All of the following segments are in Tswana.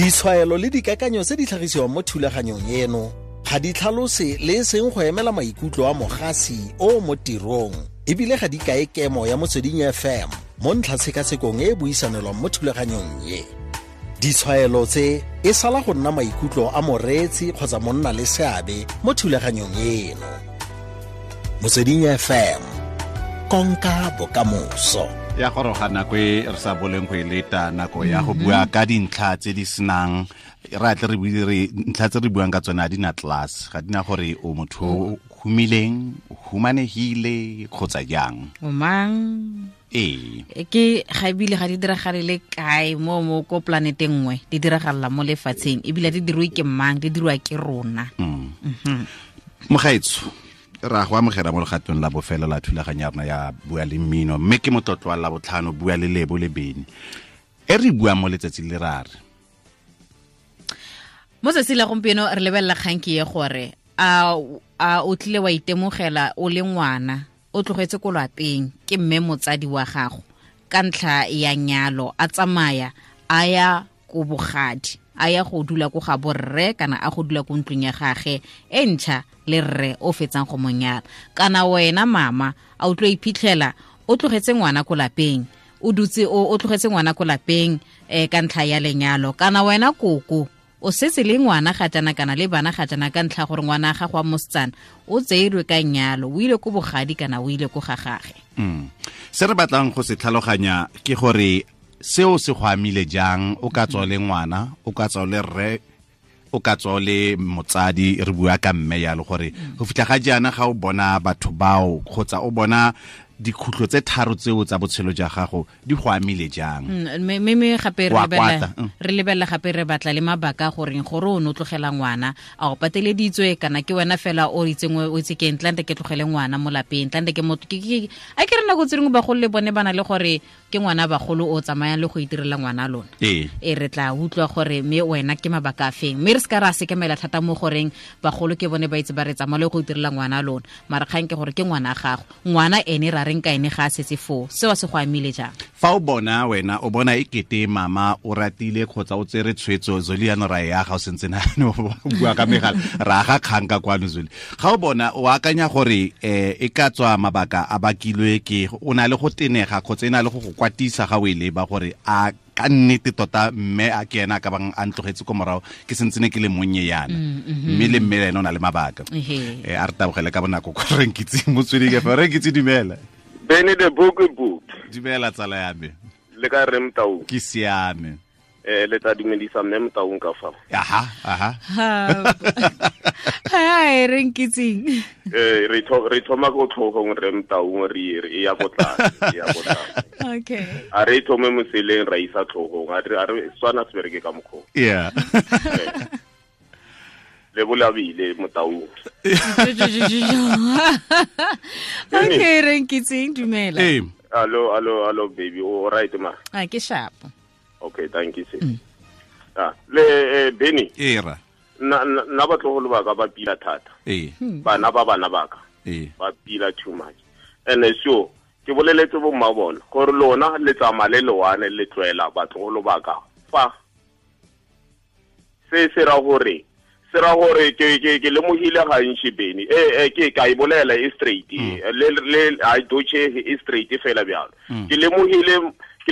Ditshwaelo le dikakanyo tse di tlhagisiwang mo thulaganyong eno ga di tlhalose le e seng go emela maikutlo a mogasi o mo tirong, ebile ga di kae kemo ya Motsweding FM mo ntlhatshekasekong e e buisanelwang mo thulaganyong e. Ditshwaelo tse e sala go nna maikutlo a moreetsi kgotsa monna le seabe mo thulaganyong eno. Motsweding FM, konka bokamoso. Ya goroga nako e re sa boleng go e leta, nako ya go bua ka dintlha tse di senang re atle re bue re ntlha tse re buang ka tsone ga di na class, ga di na gore o motho o humileng, o humanegile kgotsa jang. O mang? Ee. Ke ga ebile ga di diragale le kae mo ko planeteng nngwe, di diragalela mo lefatsheng, ebile di dirwe ke mang, di dirwa ke rona. Mogaetsho, ra go amogela mo legatong la bofelo la thulaganyo ya rona ya Bua le Mmino, mme ke motlotlo wa Labotlhano, Bua le Lebo le Bene. E re buang mo letsatsi le ra re. Mo tsatsi la gompieno re lebelela kgang ke ye gore a o tlile wa itemogela o le ngwana o tlogetse ko lwapeng ke mme motsadi wa gago ka ntlha ya nyalo, a tsamaya a ya ko bogadi, a ya go dula ko ga borre kana a go dula ko ntlong ya gage e ntšha le rre o fetsang go mo nyala. Kana wena mama a o tlo iphitlhela o tlogetse ngwana ko lapeng, o dutse o tlogetse ngwana ko lapeng ka ntlha ya lenyalo. Kana wena koko o setse le ngwana ga jana kana le bana ga jana ka ntlha gore ngwana ga go a mosetsana o tseilwe ka nyalo, o ile ko bogadi kana o ile ko ga gage. Se re batlang go se tlhaloganya ke gore seo se go amile jang, o ka tswa le ngwana, o ka tswa le rre, o ka tswa le motsadi, re bua ka mme yalo, gore go fitlha ga jaana ga o bona batho bao kgotsa o bona dikhutlo tse tharo tseo tsa botshelo ja gago di go amile jang. Mme gape Wa kwata, re lebella gape re batla le mabaka gore gore o no tlogela ngwana, a o pateleditswe kana ke wena fela o itseng o itse ke ntlante ke tlogele ngwana mo lapeng, ntlante ke motho, a ke re nako tse dingwe bagolo le bone ba na le gore ke ngwana bagolo o tsamayang le go itirela ngwana lona. E re tla utlwa gore mme wena ke mabaka a feng, mme re se ka ra sekemela thata mo goreng bagolo ke bone ba itse ba re tsamaya le go itirela ngwana lona, mara kgang ke gore ke ngwana gago, ngwana ene ra reng ka ene ga a setse foo, seo se go amile jang? Fa o bona wena o bona e kete mama o ratile kgotsa o tsere tshwetso, Zoli ya no ra ya ga o sentse na o bua ka megala, ra ga kgang ka kwano Zoli. Ga o bona o akanya gore e ka tswa mabaka a bakilwe ke o na le go tenega kgotsa e na le go go kwatisa ga o e leba gore a ka nnete tota mme a ke ena a ka bang a ntlogetse ko morago ke sentse ne ke le monnye yana, mme le mme le ene o na le mabaka. A re tabogele ka bonako kwa Renkitse Motsweding FM. Renkitse, dumela. Bene the book book. Dumela tsala ya me. Le ka re Motau? Ke siame. Le tla dumedisa mme Motaung ka fa. Aha, aha. Hi, Renkitseng. Re thoma ko tlhogong re Motaung, re ya ko tlase, re ya ko tlase. Okay. A re thome moseleng ra isa tlhogong, a re swana se bereke ka mokgwa. Yeah. Le bolabile Motaung. Okay, Renkitseng, dumela. Ee. Allo, allo, allo baby, o right ma? A ke sharp. Okay, thank you sis. Le Benny. Era. Na batlogolo ba ka ba pila thata. Bana ba bana ba ka. Ba pila too much. And so ke boleletse bo mma bona gore lona le tsamaya le lewane le tlwela batlogolo ba ka fa. Se se ra gore se ra gore ke lemohile gantši Benny. Ke ka e bolela e straight. Le a doche e straight fela bjalo. Ke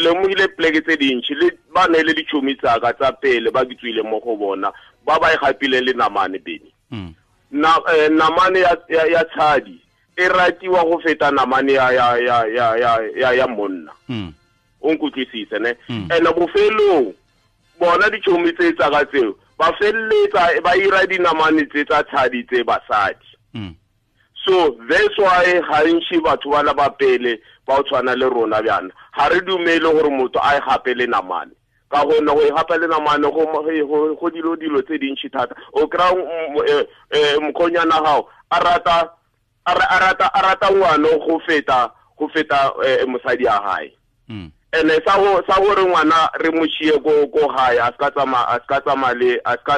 lemohile pleke tse dintši le ba ne le ditšhomi tsa ka tsa pele ba ke tswile mo go bona ba ba e gapile le namane Benny. Na namane ya tshadi e ratiwa go feta namane ya monna. O nkutlwisise ne? Ene bofelong bona ditšhomi tse tsa ka tseo ba felletsa ba ira dinamane tse tsa tshadi tse basadi. So that's why gantši batho ba la ba pele ba o tshwana le rona bjana ga re dumele gore motho a e gape le namane, ka gonne go e gape le namane go dilo dilo tse dintši thata. O kry-a mokgonyana gago a rata ngwana go feta mosadi ya hae. Ene sa gore ngwana re mo tšhie ko gae, a ska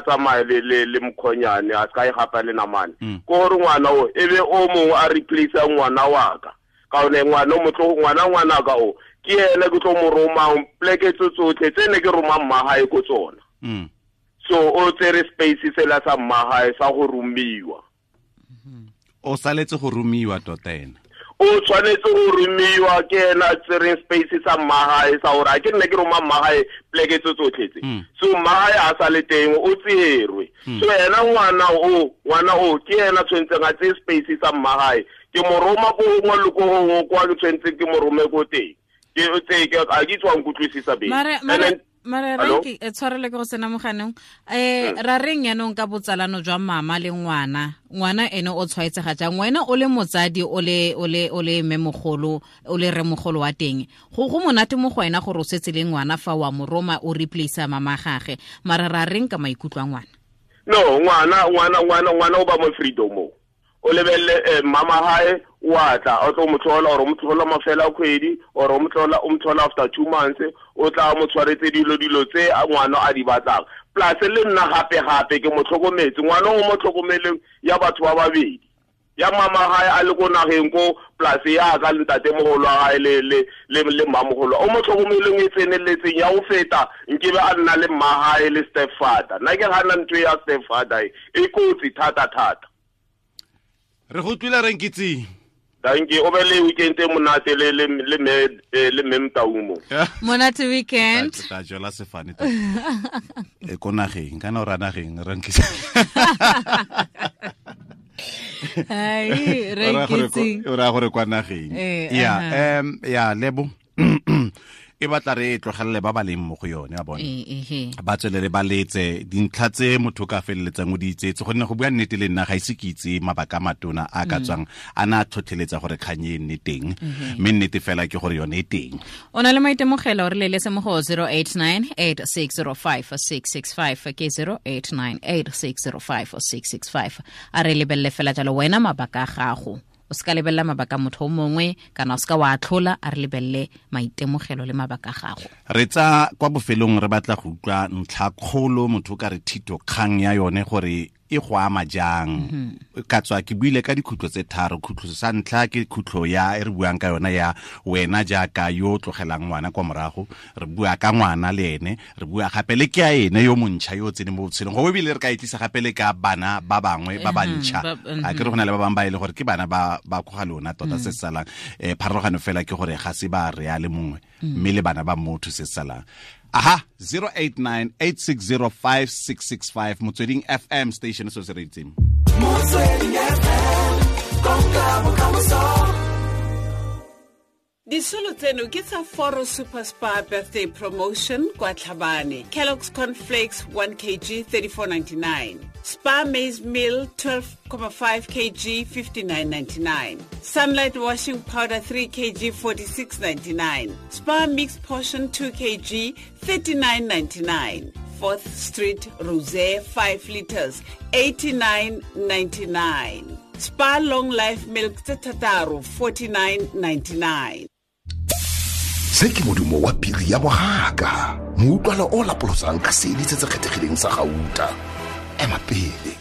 tsamaya le mokgonyane, a ska e gapa le namane. Ko gore ngwana o e be o mongwe a replace ngwana wa ka, ka gonne ngwana o motlo ngwana ka o ke ene ke tlo mo romang pleke tse tsotlhe tse ne ke romang mma gae ko tsona. So o tsere space sela sa mmagae sa go romiwa. O saletse go romiwa tota ena. O tshwanetse go romiwa ke ena tsereng space sa mmagae sa gore a ke nne ke roma mmagae pleke tse tsotlhe tse. So mmagae a sa le teng o tserwe. So ena ngwana o ke ena tshwanetseng a tseye space sa mmagae. Ke mo roma ko gongwe le ko gongwe kwa ke tshwanetseng ke mo rome ko teng. Ke tse ke a ke tswa nkutlwisisa beng. Mare re ke tshwarele ke go sena moganeng ra reng yanong ka botsalano jwa mama le ngwana. Ngwana ene o tshwaetsega jang? Wena o le motsadi o le mmemogolo o le remogolo wa teng, go monate mo go wena gore o setse le ngwana fa wa mo roma o replace mama gage. Mare ra reng ka maikutlo a ngwana? No, ngwana o ba mo freedom. O lebelle mama hae wa tla o tlo mo tlhola or o mo tlhola mafela kgwedi or o mo tlhola after 2 months, o tla mo tshwaretse dilo tse ngwana a di batlang. Plus le nna gape ke mo tlhokometse ngwana o mo tlhokomeleng ya batho ba babedi, ya mama hae a le ko nageng ko plus ya ka le ntate mogolo wa hae le mmamogolo o mo tlhokomeleng e tseneletseng ya o feta nkebe a nna le mma hae le stepfather. Nna ke gana ntho ya stepfather e kotsi thata thata. Re go tlwile re nkitse. Thank you. O be le weekend e monate le le me Mtaumo. Monate weekend. Ta jola sefane ta. E ko nageng kana o ra nageng re nkitse. Ai re nkitse. O ra gore kwa nageng. Ya ya lebo. E batla re tlogelele ba ba leng mo go yone a bone. Ba tswelele ba letse dintlha tse motho ka feleletsang o di itsetse, gonne go bua nnete le nna ga ise ke itse mabaka a matona a ka tswang a na tlhotlheletsa gore kgang e nne teng, mme nnete fela ke gore yone e teng. O na le maitemogelo re leletse mo go 089 8605 665 ke 089 8605 665. A re lebelele fela jalo wena mabaka a gago. O ska lebella mabaka motho o mongwe kana o ska wa atlhola, a re lebelle maitemogelo le mabaka a gago. Re tsa kwa bofelong re batla go utlwa ntlha kgolo motho ka re thito kgang ya yone gore e go ama jang. Ka tswa ke buile ka dikhutlo tse tharo. Khutlo sa ntlha ke khutlo ya e re buang ka yona ya wena jaaka yo tlogelang ngwana kwa morago, re bua ka ngwana le ene, re bua gape le ke a ene yo montšha yo tseneng mo botshelong, go ebile re ka itlisa gape le ka bana ba bangwe ba bantšha. A ke re go na le ba bangwe ba e le gore ke bana ba ko ga lona tota se salang. Pharologano fela ke gore ga se ba re a le mongwe mme le bana ba motho se salang. Aha, 089 8605 665 Motsweding FM station so se reitseng. Motsweding FM, konka bokamoso. Disolo tseno ke tsa Foro Super Spa birthday promotion kwa Tlhabane. Kellogg's Cornflakes 1 kg 34.99. Spa maize meal 12.5 kg 59.99. Sunlight washing powder 3 kg 46.99. Spa mixed portion 2 kg 39.99. 4th Street Rosé 5 liters 89.99. Spa long life milk tse thataro 49.99. Se ke modumo wa piri ya bohaka, moutlwalo o lapolosang ka seedi se se kgethegileng sa gauta. Ema pele.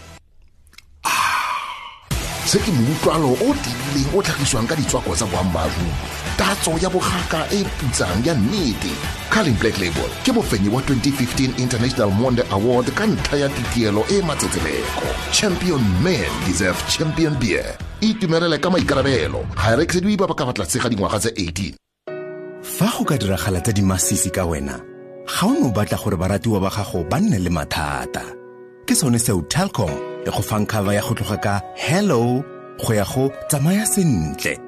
Se ke moutlwalo o tiileng o tlhagiswang ka ditswako tsa boammaaruri, tatso ya bogaka e putsang ya nnete. Carling Black Label ke mofenyi wa 2015 International Monde Award ka ntlha ya titielo e matsetseleko. Champion men deserve champion beer. Itumelele ka maikarabelo, ga e rekisediwe ba ba ka fa tlase ga dingwaga tse 18. Fa go ka diragala tsa dimasisi ka wena, ga o no batla gore baratiwa ba gago ba nne le mathata. Ke sone seo Telkom e go fang cover ya go tloga ka hello go ya go tsamaya sentle.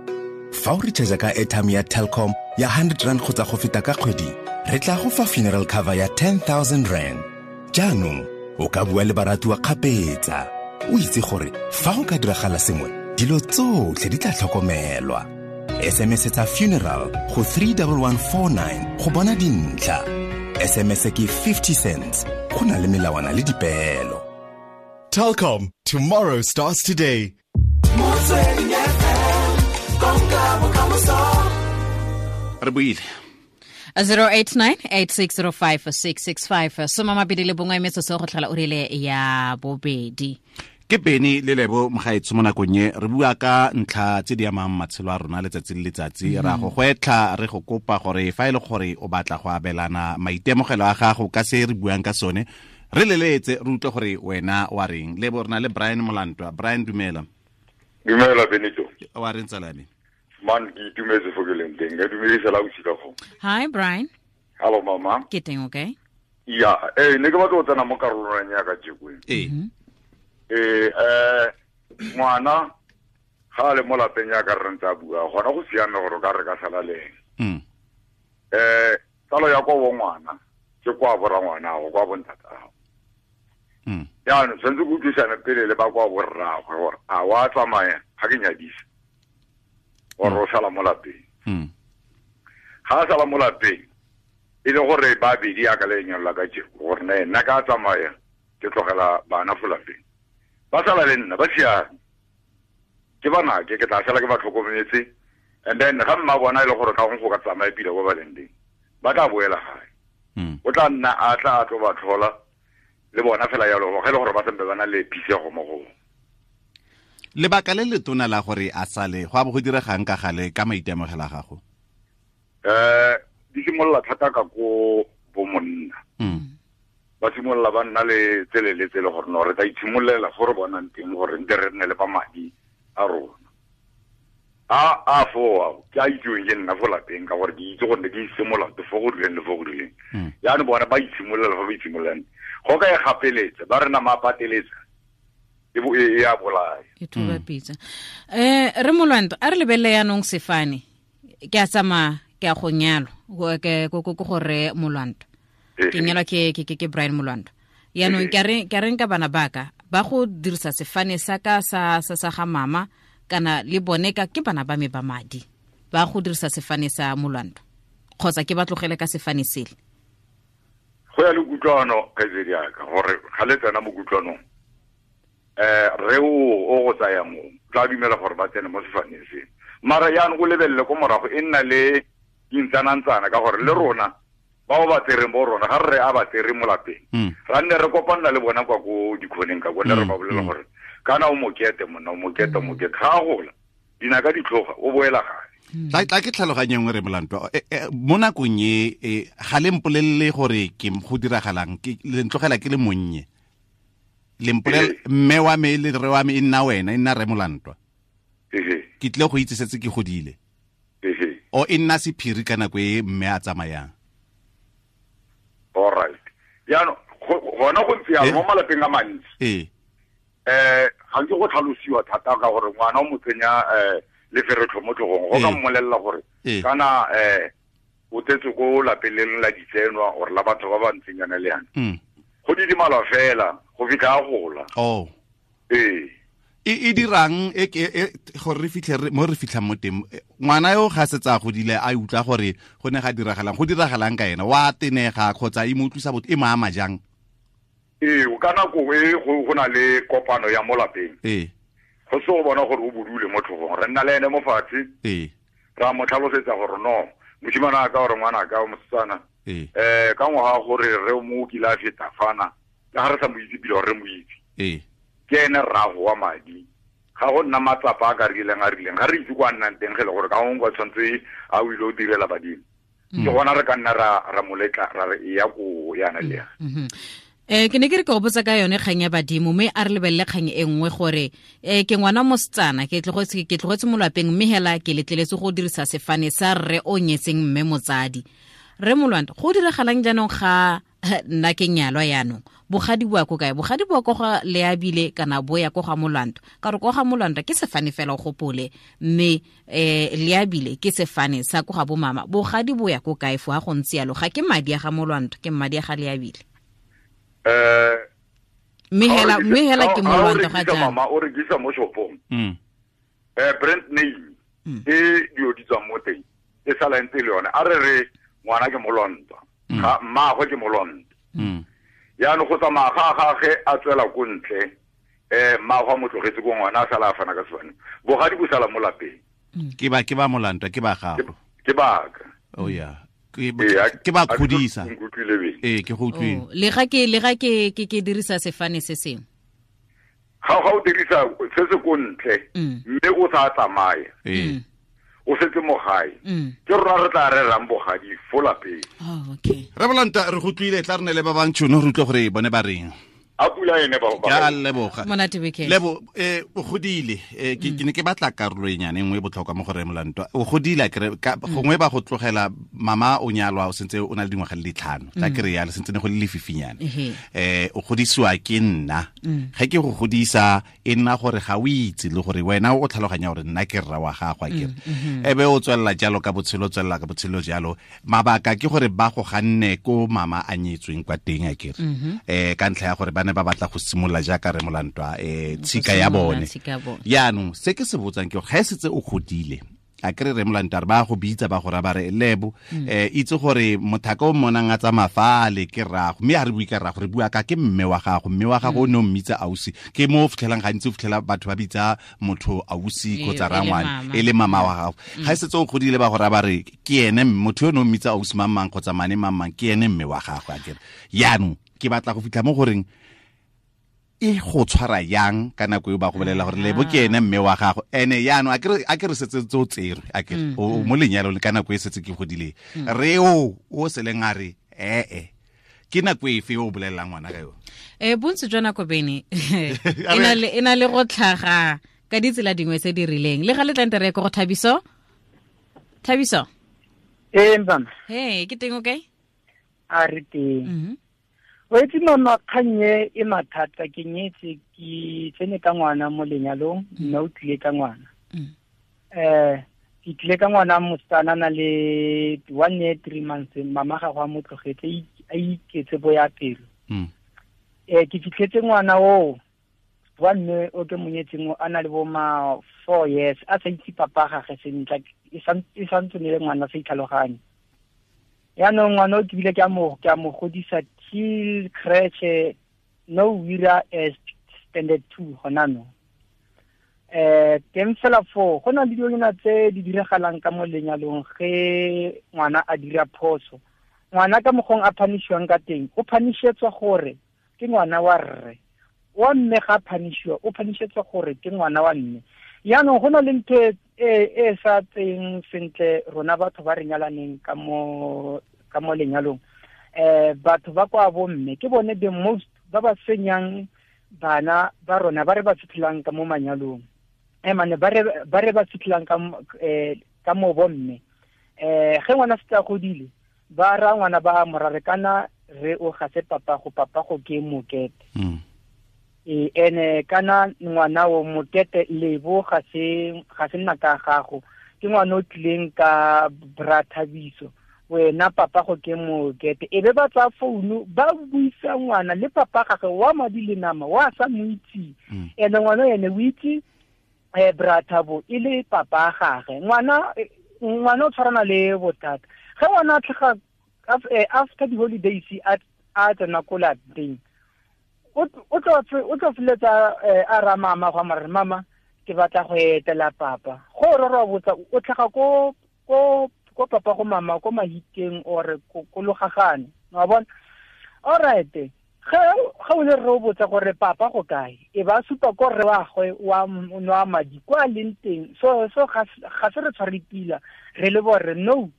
Fa o recharge ka airtime ya Telkom ya 100 rand kgotsa go feta ka kgwedi, re tla go fa funeral cover ya 10,000 rand. Jaanong o ka bua le baratiwa kgapetsa, o itse gore fa go ka diragala sengwe, dilo tsotlhe di tla tlhokomelwa. SMS tsa funeral go 31149 go bona dintlha. SMS ke 50 cents. Go na le melawana le dipeelo. Telkom, tomorrow starts today. Motsweding FM, konka bokamoso. Re buile. 089 8605 665. Soma mabedi le bongwe metsotso go tlhola o rile ya bobedi. Ke Beny le Lebo mogaetsho mo nakong e re bua ka ntlha tse di amang matshelo a rona letsatsi le letsatsi. Ra go gwetlha, re go kopa gore fa e le gore o batla go abelana maitemogelo a gago ka se re buang ka sone, Re leletse re utlwe gore wena wa reng. Le bo rena le Brian Molantwa. Brian, dumela. Dumela Benito. Wa reng tsala me? Man, ke itumetse fo ke leng teng. Ke dumedisa la bosika go. Hi Brian. Hello mama. Ke teng, okay? Ya, ne ke batla go tsena mo karolong ya ka jeko. Ngwana ga le mo lapeng ya ka re ntse a bua, gona go siame gore ka re ka sala le ene. Tsalo ya kwa bo ngwana ke kwa bo rangwana go kwa bo ntatago. Jaanong tshwanetse go utlwisane pele le ba kwa bo rraagwe gore a wa tsamaya ga ke nyadisa gore o sala mo lapeng. Ga a sala mo lapeng e le gore ba bedi ya ka le lenyalo la ka jeko gore nna ka tsamaya ke tlogela bana fo lapeng, ba sala le nna ba siame, ke banake ke tla sala ke ba tlhokometse. And then ga mma bona e le gore ka gongwe go ka tsamaya pila kwa ba leng teng, ba tla boela gae. O tla nna a tla a tlo ba tlhola le bona fela jalo, ge e le gore ba sempe ba na le phisego mo go. Lebaka le letona la gore a sale go a bo go diregang ka gale ka maitemogelo a gago? Di simolola thata ka ko bo monna. Ba simolola ba nna le tsele le tsele gore no re tla itshimololela fo re bonang teng gore nte re nne le ba madi a rona. A fo ke a itseweng ke nna fo lapeng ka gore ke itse gore ne ke isemolato fo go rileng le fo go rileng. Jaanong bona ba itshimololela fo ba itshimololang. Go ka e gapeletsa, ba re nama a pateletsa, e a bolaya. E thuba pitsa. Re Molwanto, a re lebelele yaanong sefane. Ke a tsamaya, ke a go nyalwa, ke gore Molwanto. Ke nyalwa ke Brian Molwanto. Yaanong ke a reng ka bana baka ba go dirisa sefane sa ka sa ga mama kana le bone ka ke bana ba me ba madi ba go dirisa sefane sa Molwanto, kgotsa ke ba tlogele ka sefane sele? Go ya le kutlwano kgaitsedi yaka gore ga le tsena mo kutlwanong, re o go tsaya mo tla dumela gore ba tsene mo sefaneng se. Mara jaanong o lebelele ko morago e nna le dintsanantsana ka gore le rona bao ba tsereng bo rona ga re a ba tsere mo lapeng, ra nne re kopanna le bona kwa ko dikhoneng ka kone re ba bolela gore kana o mokete monna, o mokete, o mokete, ga a gola dinaka di tlhoga o boela gae. Tla ke tlhaloganye nngwe re Molantwa. Mo nakong e ga le mpolelele gore ke go diragalang, ke le ntlogela ke le monnye. Le mpolele mme wa me le re wa me e nna wena, e nna re Molantwa. Ke tle go itse setse ke godile. O e nna sephiri ka nako e mme a tsamayang. All right. Jaanong gona go ntse jalo mo malapeng a mantsi. Ga nke go tlhalosiwa thata ka gore ngwana o mo tsenya leferetlho mo tlhogong, go ka mmolelela gore kana o tsetse ko lapeng le la ditsenwa or la batho ba ba ntseng yana le yana. Go didimalwa fela go fitlha a gola. E dirang e gore re fitlhe mo re fitlhang mo teng, ngwana yo ga setse a godile a utlwa gore go ne ga diragalang, go diragalang ka ena, wa tenega kgotsa e mo utlwisa botho, e mo ama jang? Ka nako e go na le kopano ya mo lapeng. Go se go bona gore o bodule mo tlhogong, re nna le ene mo fatshe. Ra mo tlhalosetsa gore no mosimane a ka gore ngwana ka mosetsana ka ngwaga gore re mo kile a feta fana, ka ga re sa mo itse pele gore re mo itse. Ke ene rrago wa madi, ga go nna matsapa a ka rileng a rileng, ga re itse kwa nnang teng ge le gore ka gongwe kwa tshwanetse a o ile o direla badimo. Ke gona re ka nna ra moletla ra re e ya ko yana le yana. Ke ne ke re ke go botsa ka yone kgang ya badimo, mme a re lebelele kgang e nngwe gore ke ngwana mosetsana, ke tlogetse mo lapeng mme hela ke letleletse go dirisa sefane sa rre o nyetseng mme motsadi. Re Molwanto, go diragalang jaanong ga nna ke nyalwa yaanong? Bogadi bo ya ko kae? Bogadi bo ya ko ga Leabile kana bo ya ko ga Molwanto? Ka gore ko ga Molwanto ke sefane fela o gopole, mme Leabile ke sefane sa ko ga bo mama. Bogadi bo ya ko kae fo ga go ntse yalo? Ga ke madi a ga Molwanto, ke madi a ga Leabile. Mme hela ke Molwanto ga jaana. Mama o rekisa mo shopong. Brand name e dio di tswang mo teng e sala ntse le yone. A re re ngwana ke Molwanto, ga mmaagwe ke Molwanto. Jaanong go tsamaya ga gagwe a tswela ko ntle, mmaagwe a mo tlogetse ko ngwana a sala a fana ka sefane. Bogadi bo sala mo lapeng. Ke ba Molantwa, ke ba gago. Ke baka. Oh yeah. Ke ba kgodisa. Ke go utlwile. Le ga ke dirisa sefane se sengwe. Ga o dirisa se se ko ntle, mme o sa tsamaya. o setse mo gae. Ke rona re tla rerang bogadi fo lapeng. Oh, okay. Re bolanta re go tlile tla re ne le ba bang tšhono re utlwe gore bone ba reng. A pula ene ba ba. Ya leboga. Monate weekend. Lebo o godile ke ne ke batla karolo e nyane nngwe e botlhokwa mo go re Molantwa. O godile kere gongwe ba go tlogela mama o nyalwa o sentse o na le dingwaga le ditlhano. Tla kere ya le sentse ne go le lefifinyane. O godisiwa ke nna. Ge ke go godisa e nna gore ga o itse le gore wena o tlhaloganya gore nna ke rra wa gago a kere. Ebe o tswella jalo ka botshelo tswella ka botshelo jalo. Mabaka ke gore ba go ganne ko mama a nyetsweng kwa teng a kere. Ka ntlha ya gore ba ne ba batla go simolola jaaka re Molantwa tshika ya bone. Yaanong se ke se botsang ke ga setse o godile a kere re Molantwa re ba go bitsa ba go ra ba re lebo itse gore mothaka o monang a tsamaya fale ke rrago mme a re bue ka rrago re bua ka ke mme wa gago mme wa gago o ne o mmitsa ausi ke mo o fitlhelang gantsi o fitlhela batho ba bitsa motho ausi kgotsa rangwane e le mama wa gago ga setse o godile ba go ra ba re ke ene motho yo ne o mmitsa ausi mang mang kgotsa mane mang mang ke ene mme wa gago a kere yaanong ke batla go fitlha mo goreng e go tshwara yang ka nako eo ba go bolela gore lebo ke ene mme wa gago ene yaanong a ke re setse tse o tserwe a ke o mo lenyalong ka nako e setse ke godile re o seleng a re ke nako efe o bolelelang ngwana ka yone bontsi jwa nako bene e na le go tlhaga ka ditsela dingwe tse di rileng le ga le tlante re ko go Thabiso. Thabiso mama hey ke teng okay a re teng o itse mama kgannye e mathata ke nyetse ke tsene ka ngwana mo lenyalong mme o tlile ka ngwana ke tlile ka ngwana mosetsana na le 1 year 3 months mama ga go a mo tlogetse a iketse bo ya pelo ke fitlhetse ngwana o wa mme o ke monyetseng a na le bo ma 4 years a sa itse papa gagwe sentle e santse ne le ngwana sa itlhaloganye. Yaanong ngwana o ke bile ke a mo godisa till creche no wira as standard 2 gona no. Teng fela foo go na le dilonyana tse di diragalang ka mo lenyalong ge ngwana a dira phoso. Ngwana ka mokgong a phanishiwang ka teng o phanishetswa gore ke ngwana wa rre wa mme ga phanishiwa o phanishetswa gore ke ngwana wa mme. Yaanong go na le ntho e sa tseng sentle rona batho ba re nyalaneng ka mo lenyalong batho ba kwa bo mme ke bone the most ba ba senyang bana ba rona ba re ba fitlhelang ka mo manyalong mane ba re ba fitlhelang ka mo bo mme ge ngwana se tla godile ba ra ngwana ba morare kana re o ga se papa go ke mokete ene kana ngwana o mokete lebo ga se nna ka gago ke ngwana o tlileng ka bra Thabiso wena papa go ke mokete e be ba tsa founu ba buisa ngwana le papa gagwe wa madi le nama wa sa mo itse ene ngwana ene o itse bra Thabo e le papa gagwe ngwana o tshwarana le bothata ge ngwana a tlhaga after the holidays a tsena ko lapeng o tlo feletsa a ra mama go mare mama ke batla go etela papa go re re botsa o tlhaga ko papa go mama ko Mahikeng or ko Logagane wa bona all right ge o le re botsa gore papa go kae e ba supa ko re wa gwe wa nwa madi kwa leng teng so ga se re tshware pila re le bore no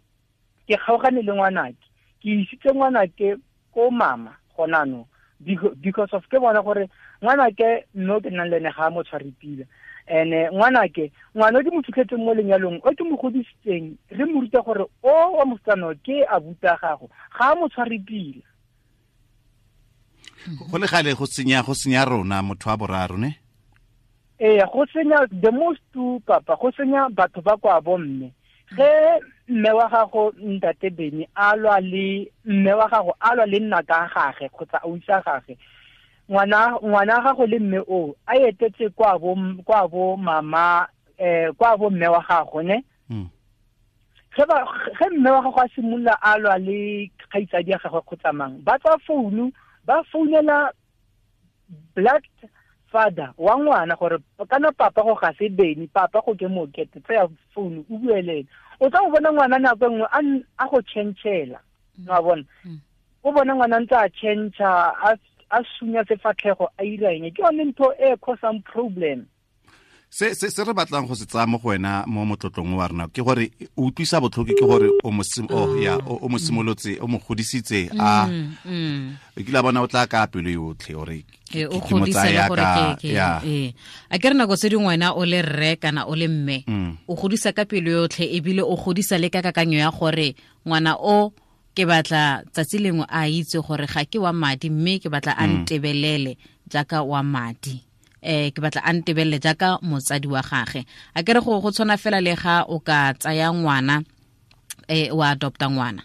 ke kgaogane le ngwanake ke isitse ngwanake ko mama gona no because of ke bona gore ngwanake no ke nang le ene ga mo tshware pila ene ngwanake ngwana o ke mo fitlhetseng mo lenyalong o ke mo godisitseng re mo ruta gore o wa mosetsana ke a buta gago ga mo tshware pila go le gale go senya rona motho wa boraro ne go senya the most two papa go senya batho ba kwa bo mme ge mme wa gago ntate Beni a lwa le mme wa gago a lwa le nna ka gagwe kgotsa a usa gagwe ngwana gago le mme o a etetse kwa bo mama kwa bo mme wa gago ne ge mme wa gago a simolola a lwa le kgaitsadi ya gagwe kgotsa mang ba tswa founu ba founela black father wa ngwana gore kana papa go ga se Beni papa go ke mokete tseya founu o bue le ene o tla go bona ngwana nako nngwe a go tšhentšhela wa bona o bona ngwana ntse a tšhentšha a sunya sefatlhego a ira eng ke yone ntho e causang problem. Se se se re batlang go se tsaya mo go wena mo motlotlong wa rona ke gore o utlwisa botlhoko ke gore o mo ya o mo simolotse o mo godisitse a e kile bona o tla ka pelo yotlhe ore o godisa le gore ke a ke re nako tse dingwe wena o le rre kana o le mme o godisa ka pelo yotlhe ebile o godisa le ka kakanyo ya gore ngwana o ke batla tsatsi lengwe a itse gore ga ke wa madi mme ke batla a ntebelele jaaka wa madi ke batla a ntebelele jaaka motsadi wa gage a ke re go tshwana fela le ga o ka tsaya ngwana wa adopta ngwana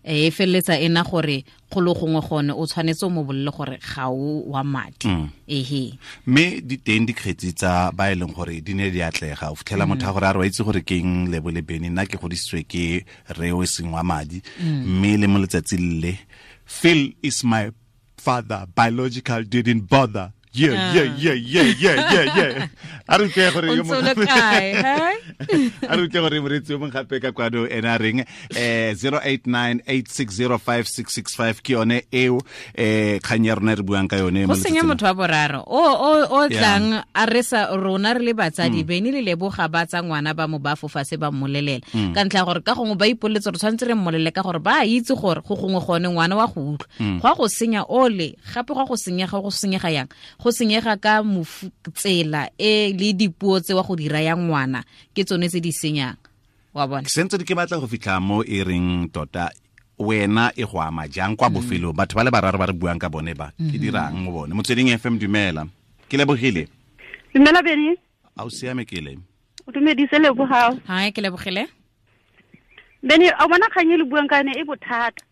e feleletsa ena gore golo gongwe gone o tshwanetse o mo bolele gore ga o wa madi ehe mme di teng dikgetsi tsa ba e leng gore di ne di atlega o fitlhela motho a gore a re wa itse gore ke eng Lebo le Bene nna ke godisitswe ke re o seng wa madi mme le mo letsatsi le Phil is my father biological didn't bother. Yeah. A re ke gore yo mongwe a re ke gore moretsi yo mongwe gape ka kwano ena a reng 0898605665 ke yone eo kgang ya rona re buang ka yone go senya motho wa boraro o tlang a re sa rona re le batsadi Bene le Leboga ba tsa ngwana ba mo ba fofa se ba mmolelela ka ntlha gore ka gongwe ba ipoletse re tshwanetse re mmolele ka gore ba itse gore go gongwe gone ngwana wa go utlwa go a go senya ole gape go a go senyega go senyega yang go senyega ka tsela e le dipuo tse wa go dira ya ngwana ke tsone tse di senyang wa bona sentse ke batla go fitlha mo e reng tota wena e go ama jang kwa bofelong batho ba le bararo ba re buang ka bone ba ke dirang mo bone Motsweding FM dumela ke lebogile dumela Bene a o siame ke le o dumedise Lebogang hi ke lebogile Bene a bona kgang e le buang ka yone e bothata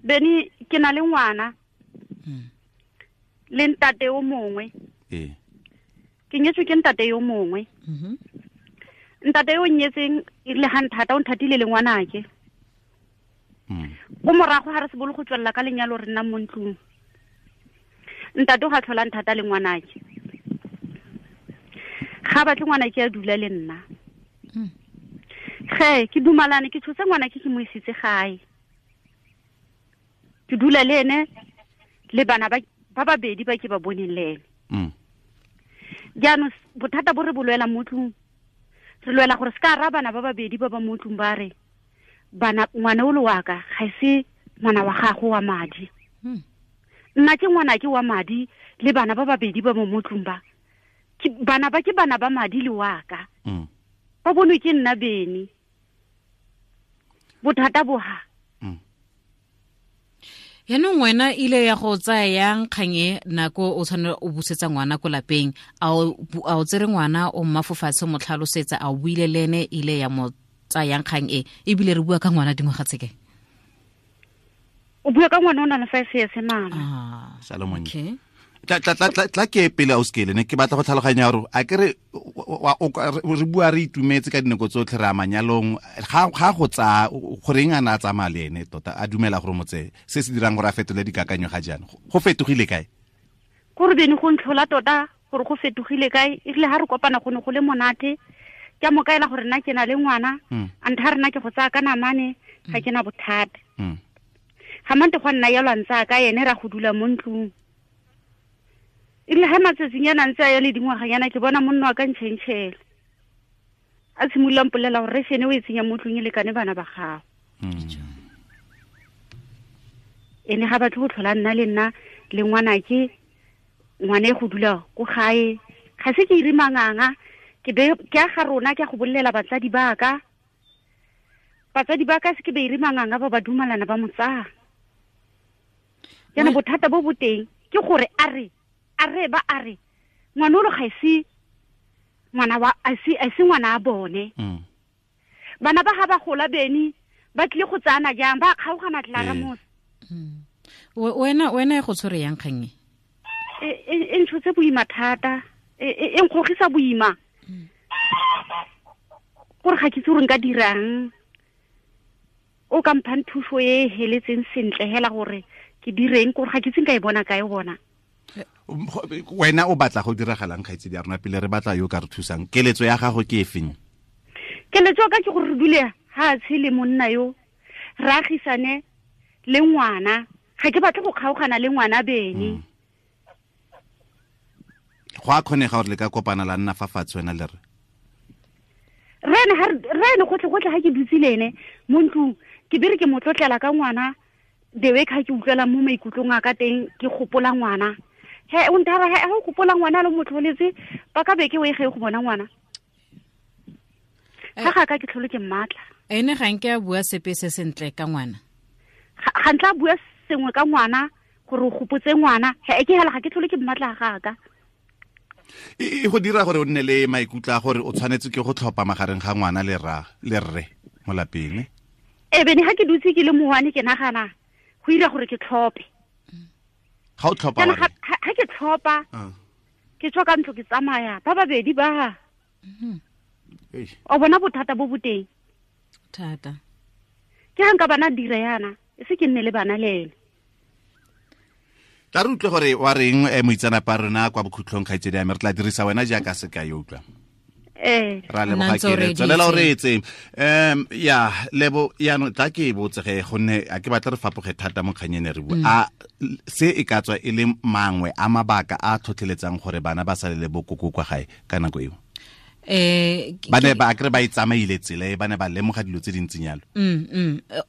Bene ke na le ngwana le ntate o mongwe ke nyetswe ke ntate yo mongwe ntate yo nyetseng le ha nthata o nthatile le ngwanake go morago ha re se bolo go tswella ka lenyalo re nna mo ntlong ntate o ga tlhola nthata le ngwanake ga batle ngwanake a dula le nna ge ke dumalane ke tshotse ngwanake ke mo isitse gae ke dula le ene le bana ba babedi ba ke ba boneng le ene jaanong bothata bo re bo lwela mo tlung re lwela gore se ka ra bana ba babedi ba ba mo tlung ba re bana ngwana o le wa ka ga se ngwana wa gago wa madi nna ke ngwana ke wa madi le bana ba babedi ba mo tlung ba bana ba ke bana ba madi le wa ka ba bonwe ke nna Bene bothata bo ha yaanong wena ile ya go tsaya yang kgang e nako o tshwanela o busetsa ngwana ko lapeng a o tsere ngwana o mmafofatshe mo tlhalosetsa a o buile le ene ile ya mo tsayang kgang e ebile re bua ka ngwana dingwaga tse kae o bua ka ngwana o na le 5 years mama Salomon okay tla ke pele o skele ne ke batla go tlhaloganya gore a ke re re bua re itumetse ka dinako tsotlhe re a manyalong ga go tsaya goreng a na a tsamaya le ene tota a dumela gore motse se se dirang gore a fetole dikakanyo ga jaana go fetogile kae gore Bene go ntlhola tota gore go fetogile kae e rile ha re kopana go ne go le monate ke a mo kaela gore nna ke na le ngwana a ntha rena ke go tsaya ka namane ga ke na bothata ga mante go nna ya lwantsa ka ene ra go dula mo ntlong e rile ga matsatsinyana ntse a ya le dingwaganyana ke bona monna wa ka ntšhentšhela a simolola mpolela gore rešene o e tsenya mo tlong e lekane bana ba gago ene ga batle go tlhola nna le nna le ngwanake ngwana e go dula ko gae ga se ke ire manganga ke a ga rona ke a go bolelela batsadi ba ka se ke be ire manganga ba ba dumalana ba mo tsaya jaanong bothata bo bo teng ke gore a re ngwana o lo ga se ngwana wa a se ngwana a bone bana ba ga ba gola Bene ba tlile go tsana jang ba kgaogana tlara mos wena e go tshwere yang kgang e ntshotse boima thata e nkgogisa boima gore ga ke itse gore nka dirang o ka mphang thuso e heletseng sentle hela gore ke direng gore ga ke itse nka e bona kae bona wena o batla go diragalang kgaitsedi ya rona pele re batla yo ka re thusang keletso ya gago ke efeng keletso ka ke gore re dule ha tshele monna yo re agisane le ngwana ga ke batle go kgaogana le ngwana Bene Go a kgonega gore le ka kopana la nna fa fatshe wena le re. Rene gotlhe ga ke dutse le ene mo ntlong ke bere ke mo tlotlela ka ngwana the way ka ke utlwela mo maikutlong a ka teng ke gopola ngwana. He o ntara he o gopola ngwana le motlholetse ba ka beke o e ge go bona ngwana. Ga ka ke tlholo ke mmatla. Ene ga nke a bua sepe se sentle ka ngwana. Ga ntla bua sengwe ka ngwana gore o gopotse ngwana he ke hela ga ke tlholo ke mmatla ga ka. E go dira gore o nne le maikutlo a gore o tshwanetse ke go tlhopa magareng ga ngwana le ra le rre mo lapeng. E bene ga ke dutse ke le mowane ke nagana go ira gore ke tlhope. Ga o tlhopa wa ga ke tlhopa ke tswa ka ntlo ke tsamaya ba babedi ba. O bona bothata bo boteng. Thata. Ke ga nka bana dira yana e se ke nne le bana le ene. Tla re utlwe gore wa reng moitsanapa rona kwa bokhutlong kgaitsedi ya me re tla dirisa wena jaaka sekai utlwa. Ra leboga ke tswelela o reetse. Ya lebo yaanong tla ke e botsege gonne a ke batla re fapoge thata mo kganyeng re bua. A se e ka tswa e le mangwe a mabaka a tlhotlheletsang gore bana ba sale le bokoko kwa gae ka nako eo. Ba ne ba akre ba itsamaile tsela e ba ne ba lemoga dilo tse dintseng yalo.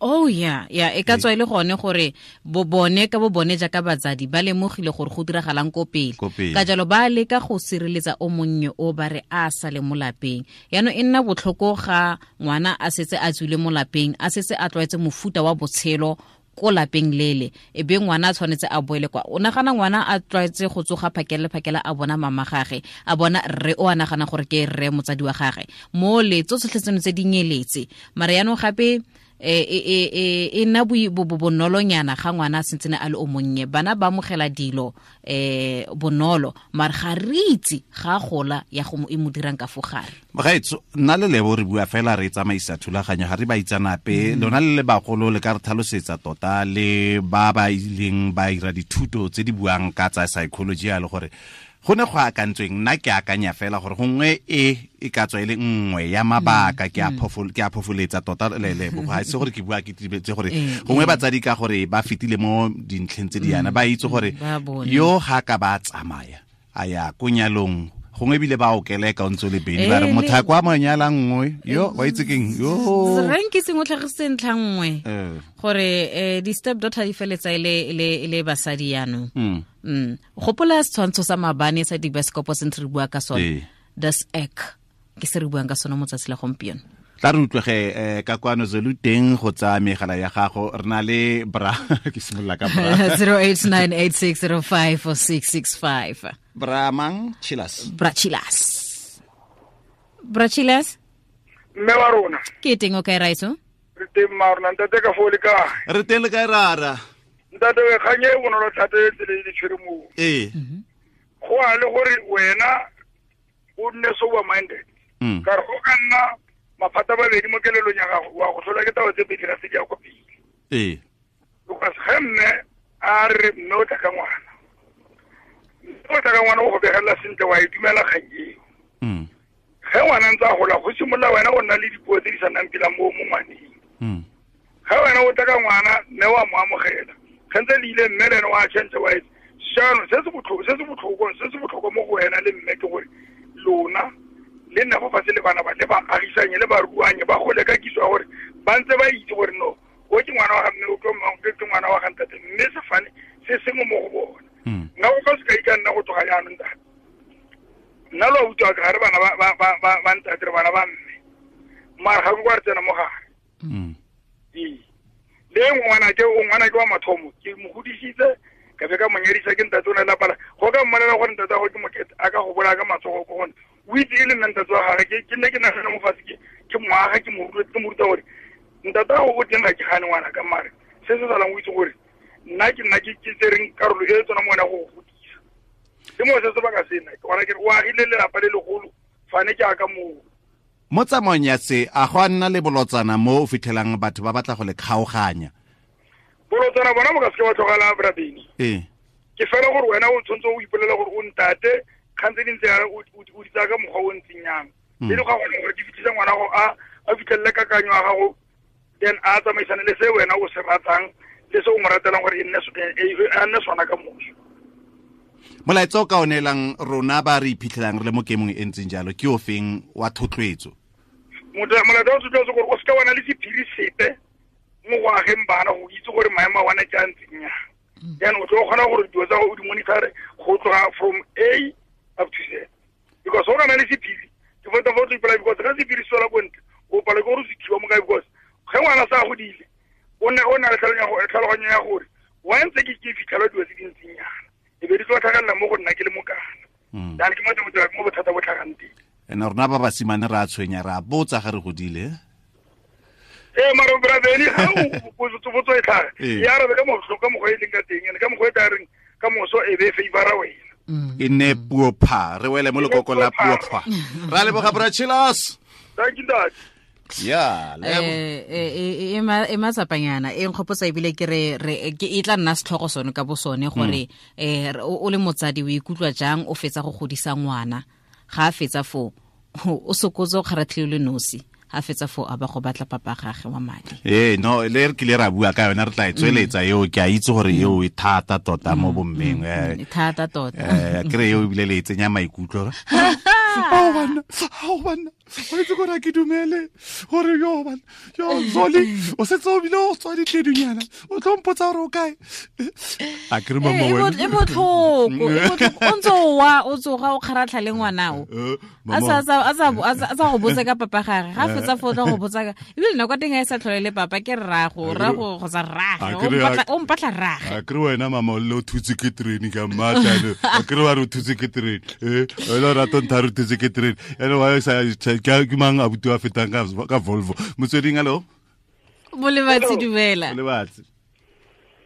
Oh yeah, yeah, e ka tswa ile gone gore bo bone ka bo bone jaaka batsadi ba lemogile gore go diragalang ko pele. Ka jalo ba leka go sireletsa o monnye o ba re a sale mo lapeng. Yaanong e nna botlhoko ga ngwana a setse a tswile mo lapeng, a setse a tlwaetse mofuta wa botshelo ko lapeng lele e be ngwana a tshwanetse a boele kwa. O nagana ngwana a tlwaetse go tsoga phakele phakela a bona mama gage, a bona rre o a nagana gore ke rre motsadi wa gage mo le tsotlhe tseno tse di nyeletse. Mara yaanong gape e nna bonolonyana ga ngwana a sentsene a le o monnye, bana ba amogela dilo bonolo mara ga re itse ga gola ya go e mo dirang ka fo gare. Mogaetso nna le Lebo re bua fela re tsamaisa thulaganyo ga re ba itsanape lona le le bagolo le ka re tlhalosetsa tota le ba ba ileng ba ira dithuto tse di buang ka tsa psychology ya le gore go ne go akantsweng. Nna ke akanya fela gore gongwe e ka tswa e le nngwe ya mabaka ke a phofoletsa tota le Lebo ga se gore ke bua ke tibetse gore gongwe batsadi ka gore ba fetile mo dintlheng tse di yana ba itse gore yo ga ka ba tsamaya a ya ko nyalong gongwe ebile ba okeleka o ntse le bedi ba re motho a kwa monyala nngwe yo wa itse keng yo reng ke sengwe tlhagisitse ntlha nngwe gore di-step daughter di feletsa e le basadi yaanong. Gopola setshwantsho sa maabane sa dibasekopo se ntse re bua ka sone, das ek ke se re buang ka sone mo tsatsi la gompieno. Tla re utlwege ka kwano Zulu teng go tsaya megala ya gago re na le bra ke simolola ka bra 0898605665 bra mang Chilas bra Chilas bra Chilas mme wa rona ke teng o kae raitso re teng ma rona ntate ka fo le kae re teng le kae rara ntate we kganye e bonolo thata e tsele e tshwere mo go a le gore wena o nne sober minded ka re go ka nna maphata babedi mo kelelong ya gago wa go tlhola ke taba tse pedi ga se di ya kwa pele. Because ge mme a re mme o tla ka ngwana, mme o tla ka ngwana o go begelela sentle wa e dumela kgang eo. Ge ngwana ntse a gola go simolola wena o nna le dipuo tse di sa nnang pila mo ngwaneng. Ge wena o tla ka ngwana mme wa mo amogela ge ntse le ile mme le ene wa change wa etse jaanong se se botlhokwa mo go wena le mme ke gore lona le nna fo fatshe le bana ba le ba agisanye le ba ruanye ba gole ka kitso ya gore ba ntse ba itse gore no o ke ngwana wa ga mme o ke ngwana wa ga ntate mme sefane se sengwe mo go bona. Nna go ka sekai ka nna go tloga jaanong ntate nna lo utlwa ka gare bana ba ntate re bana ba mme mara ga ke kwa re tsena mo gare. Le ngwana ke wa mathomo ke mo godisitse ka be ka mo nyadisa ke ntate o ne lapala go ka mmolela gore ntate go ke mokete a ka go bolaya ka matsogo ko gone o itse e le nna ntate wa gage ke nne ke nagana mo fatshe ke moaga ke mo ruta gore ntate go o teng ga ke gane ngwana ka mare se se salang o itse gore nna ke nna ke tsereng karolo e tsona mo wena go godisa le mo se sebaka sena ke gona ke re o agile lelapa le legolo fane ke aka moo. Mo tsamaong ya se a go a nna le bolotsana mo o fitlhelang batho ba batla go le kgaoganya? Bolotsana bona bo ka seke ba tlogela brabeni. Ke fela gore wena o tshwanetse o ipolela gore o ntate kgang tse dintse o di tsaya ka mokgwa o ntseng yang e le ga gone gore di fitlhisa ngwana go a fitlhelele kakanyo ya gago then a tsamaisane le se wena o se ratang le se o mo ratelang gore e nne sona ka moso. Molaetsa o ka o neelang rona ba re iphitlhelang re le mo kemong e ntseng jalo ke o feng wa thotloetso? Molaetsa wa thotloetso gore o seka wa na le sephiri sepe mo go ageng bana go itse gore maemo a bona ke a ntseng yang. Jaanong o tlo kgona gore dilo tsa go di monitor go tloga from A up to Z. Because go na le sephiri ke feta fo tlo because ga sephiri se tswela ko ntle o palelwa ke gore o se thiba mo kae, because ge ngwana sa godile o na le tlhaloganyo ya gore wa ntse ke fitlhelwa dilo tse dintsinyana e be di tlo tlhagelela mo go nna ke le mokana. Jaanong ke mo bothata bo tlhagang teng. Ene rona ba basimane re a tshwenya, re a botsa ga re godile. Mara brabeni ga o botso e tlhaga ya arabe ka mokgwa ka mokgwa e leng ka teng, ene ka mokgwa e tla reng ka moso e be favora wena. E nne puo pha, re wele mo lekoko la puo pha. Ra leboga bra Chilas. Thank you dad. Ya, e matsapanyana e nkgopotsa ebile ke re ke e tla nna setlhogo sone ka bo sone gore o le motsadi o ikutlwa jang o fetsa go godisa ngwana, ga a fetsa foo o sokotse o kgaratlhile le nosi, a fetsa foo a ba go batla papa gagwe wa madi. No le re kile ra bua ka yona, re tla e tsweletsa eo, ke a itse gore eo e thata tota mo bommeng. E thata tota. Ke re eo ebile le e tsenya maikutlo. Ao banna, o itse gore ke dumele gore yo banna, yo Zoli, o setse o bile o tswa ditledunyana, o tlo mpotsa gore o kae. A ke re mama wena. E botlhoko, o ntse o wa, o tsoga o kgaratlha le ngwanao. A sa go botsa ka papa gagwe, ga fetsa fo tla go botsa ka ebile nako teng a e sa tlhole le papa ke rrago, rrago kgotsa rrage, o mpatla rrage. A ke re wena mama o le o thutse ke terene ka mmatla, a ke re wa re o thutse ke terene, wena o rata o ntha re o thutse ke terene, ene wa sa ke mang abuti wa fetang ka Volvo. Motsweding, hello. Bolebatsi, dumela. Bolebatsi.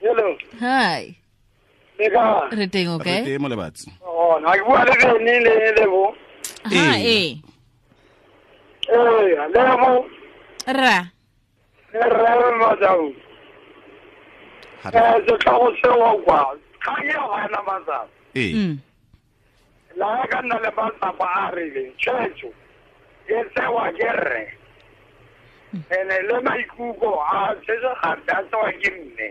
Hello. Hi. Re teng, okay? Re teng, Molebatsi. Oh, na ke bua le Bene le Lebo. Ha, eh. Lebo. Ra. Ra Madau. Setlhogo seo kwa. Kgang eo ga ena matsapa. La ka nna le matsapa a rileng, tshwetso e tsewa ke rre. Ene le maikutlo a tshwetso gape a tsewa ke mme.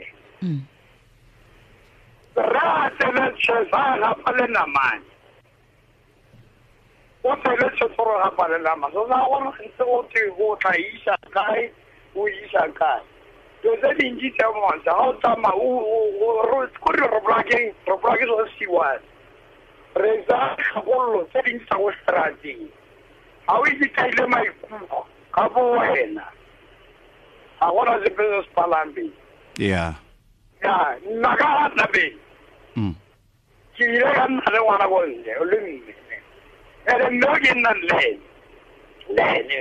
Rre a tsele tshwetso a gapa le namane. O tsele tshwetso gore gapa le namane. So sa gore ntse o twe o tla isa kae, o isa kae. Dilo tse dintsi tse montsha ga o tsamaya kore re bolaya ke sone se one. Re tsaya kgakololo tse dintsi tsa ko strateng. Ga o itse kaile maikutlo ka bo wena, ga gona sepe se se palang pele. Yeah. Ya, nna ka ga nna pele. Ke ile ka nna le ngwana ko ntle, le mme. Ene mme o ke nnang le ene.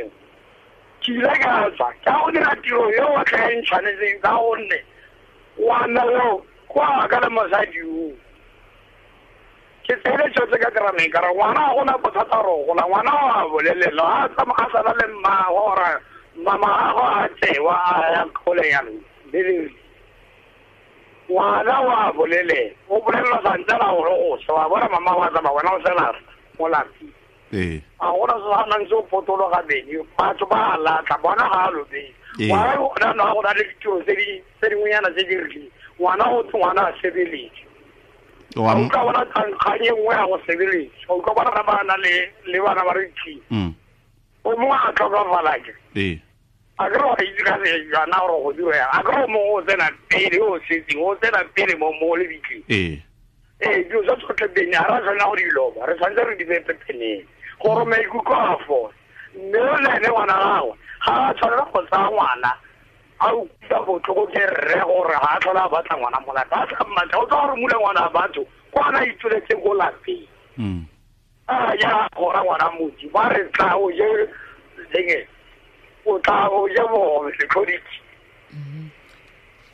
Ke ile ka tswa, ka go dira tiro eo o tla e ntshwanetseng ka gonne ngwana yo kwa ka le mosadi o. Ke tsele tshwetso ka terameng ka re ngwana ga gona bothata gore o gola, ngwana o a bolelela, a tsamaya a sala le mmagwe gore mama gagwe a tsewa a ya kgole jalo. Ngwana o a bolelela, o bolelela santsana gore go swa, wa bona mama wa tsamaya wena o sela mo lapeng. A gona se sa nang se o potologa bene, batho ba a latlha, bona ga a lobeng. Ngwana o na go na le ditiro tse dingwenyana tse di rileng, ngwana go twe ngwana a sebeletse. O utlwa bona kgang e nngwe ya go sebeletsa, o utlwa bona ba na le bana ba re thi. O mongwe a tlhokafala ke. A ke re wa itse ka sejana gore go dirwa yang, a ke re o mongwe o tsena pele o setseng, o tsena pele mo lebitleng. Dilo tsa tsotlhe bene ga re a tshwanela go di loba, re tshwanetse re di beye pepeneng gore maikutlo a fole. Mme le ene ngwana gagwe ga a tshwanela go tsaya ngwana a utlwa botlhoko ke rre gore ga a tlhola a batla ngwana mo lapeng, a tla mmatla, o tla gore mula ngwana a batho kwa na itsweletseng ko lapeng. A ya gora ngwana motsi ba re tla o je lenge, o tla o je bogobe setlhoditse.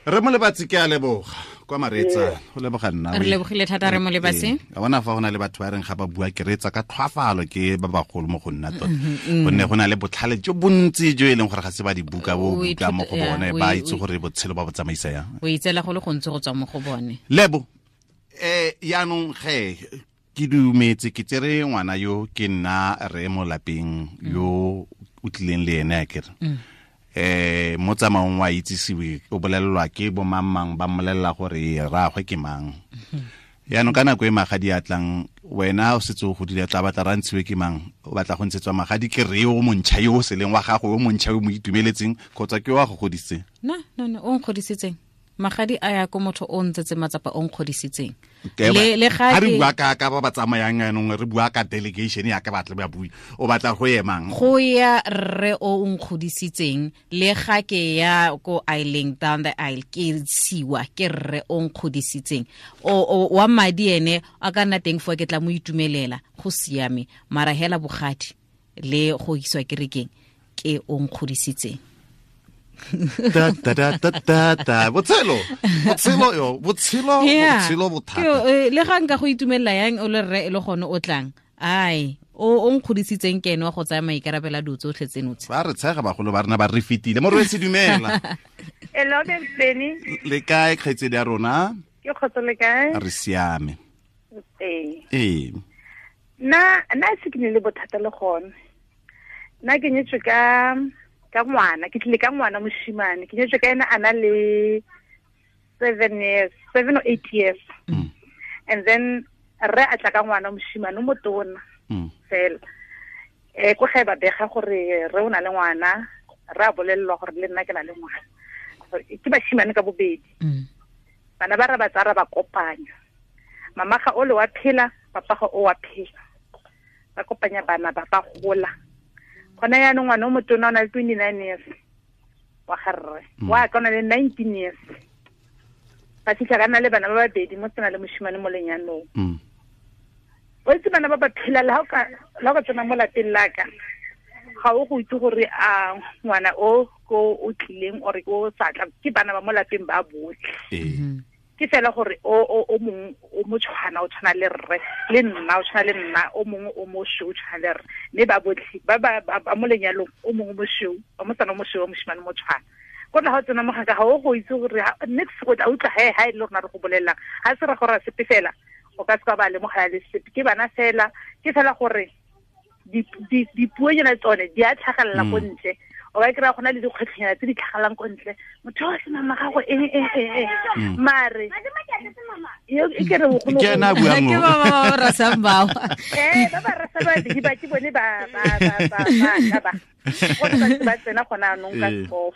Re Molebatsi, ke a leboga kwa mareetsa, go leboga nna. Re lebogile thata re Molebatsi. A bona fa go na le batho ba reng ga ba bua ke reetsa ka tlhwafalo ke ba bagolo mo go nna tota. Gonne go na le botlhale jo bontsi jo e leng gore ga se ba di buka bo buka mo go bone, ba itse gore botshelo ba bo tsamaisa yang. O itseela go le gontsi go tswa mo go bone. Lebo, yaanong ge ke dumetse ke tsere ngwana yo ke nna re mo lapeng yo o tlileng le ene a kere. Mo tsamaong wa itsisiwe o bolelelwa ke bo mang mang ba mmolelela gore rraagwe ke mang. Yaanong ka nako e magadi a tlang, wena o setse o godile, tla batla ra ntshiwe ke mang? O batla go ntshetswa magadi ke re o montšha yo o seleng wa gago, o montšha o mo itumeletseng, kgotsa ke wa go godisitseng? No, o nkgodisitseng. Magadi a ya ko motho o ntsetse matsapa o nkgodisitseng. Le ga re bua ka ba ba tsamayang yanong, re bua ka delegation ya ka batla ba bui. O batla go emang? Go ya rre o nkgodisitseng, le ga ke ya ko aisling down the aisle ke siwa ke rre o nkgodisitseng. O wa madi ene a ka nna teng fo ke tla mo itumelela, go siame. Mara hela bogadi le go iswa kerekeng ke o nkgodisitseng. Ta ta ta ta ta ta. Botshelo yo, botshelo bothata. Le ga nka go itumelela yang o le rre e le gone o tlang. Ai, o nkgodisitseng ke ene wa go tsaya maikarabelo a dilo tsotlhe tseno tse. Ba re tshega bagolo ba rena ba re fetile. Morwetsi dumela. Hello Benny. Le kae kgaitsedi ya rona? Ke kgotso le kae? Re siame. Ee. Nna se ke ne le bothata le gone. Nna ke nyetswe ka ngwana, ke tlile ka ngwana moshimane, ke nyetswe ka ena a na le 7 years, 7 or 8 years. And then re a tla ka ngwana moshimane o motona fela. Ko gae ba bega gore re o na le ngwana, re a bolelelwa gore le nna ke na le ngwana. Ke bashimane ka bobedi. Bana ba re ba tsara ba kopanya. Mama ga o le wa phela, papa ga o wa phela. Ba kopanya bana ba ba gola. Gona yaanong ngwana o motona o na le 29 years wa ga rre, wa ka o na le 19 years. Ba fitlha ka nna le bana ba babedi, mo tsena le moshimane mo lenyanong. O itse bana ba ba phela le ha o ka tsena mo lapeng la ka, ga o go itse gore a ngwana o ko o tlileng or o sa tla, ke bana ba mo lapeng ba botlhe. Ke fela gore o mongwe o mo tshwana, o tshwana le rre, le nna o tshwana le nna, o mongwe o mosweu o tshwana le rre, mme ba botlhe ba ba mo lenyalong, o mongwe mosweu, wa mosana o mosweu, wa moshimane mo tshwana. Ko tla ga o tsena mo ga o go itse gore next go tla utlwa he e le rona re go bolelelang, ga se ra gore sepe fela, o ka se ka ba lemogela le sepe, ke bana fela, ke fela gore dipuonyana tsone di a tlhagelela ko ntle. O ka kry-a go na le dikgwetlhonyana tse di tlhagalang ko ntle, motho o se mama gago eng mare e ke re ke ena a buang ke ba ba rasang bao. Ba ba rasa babedi ba ke bone ba ba ba ba tsena gona anong ka skof.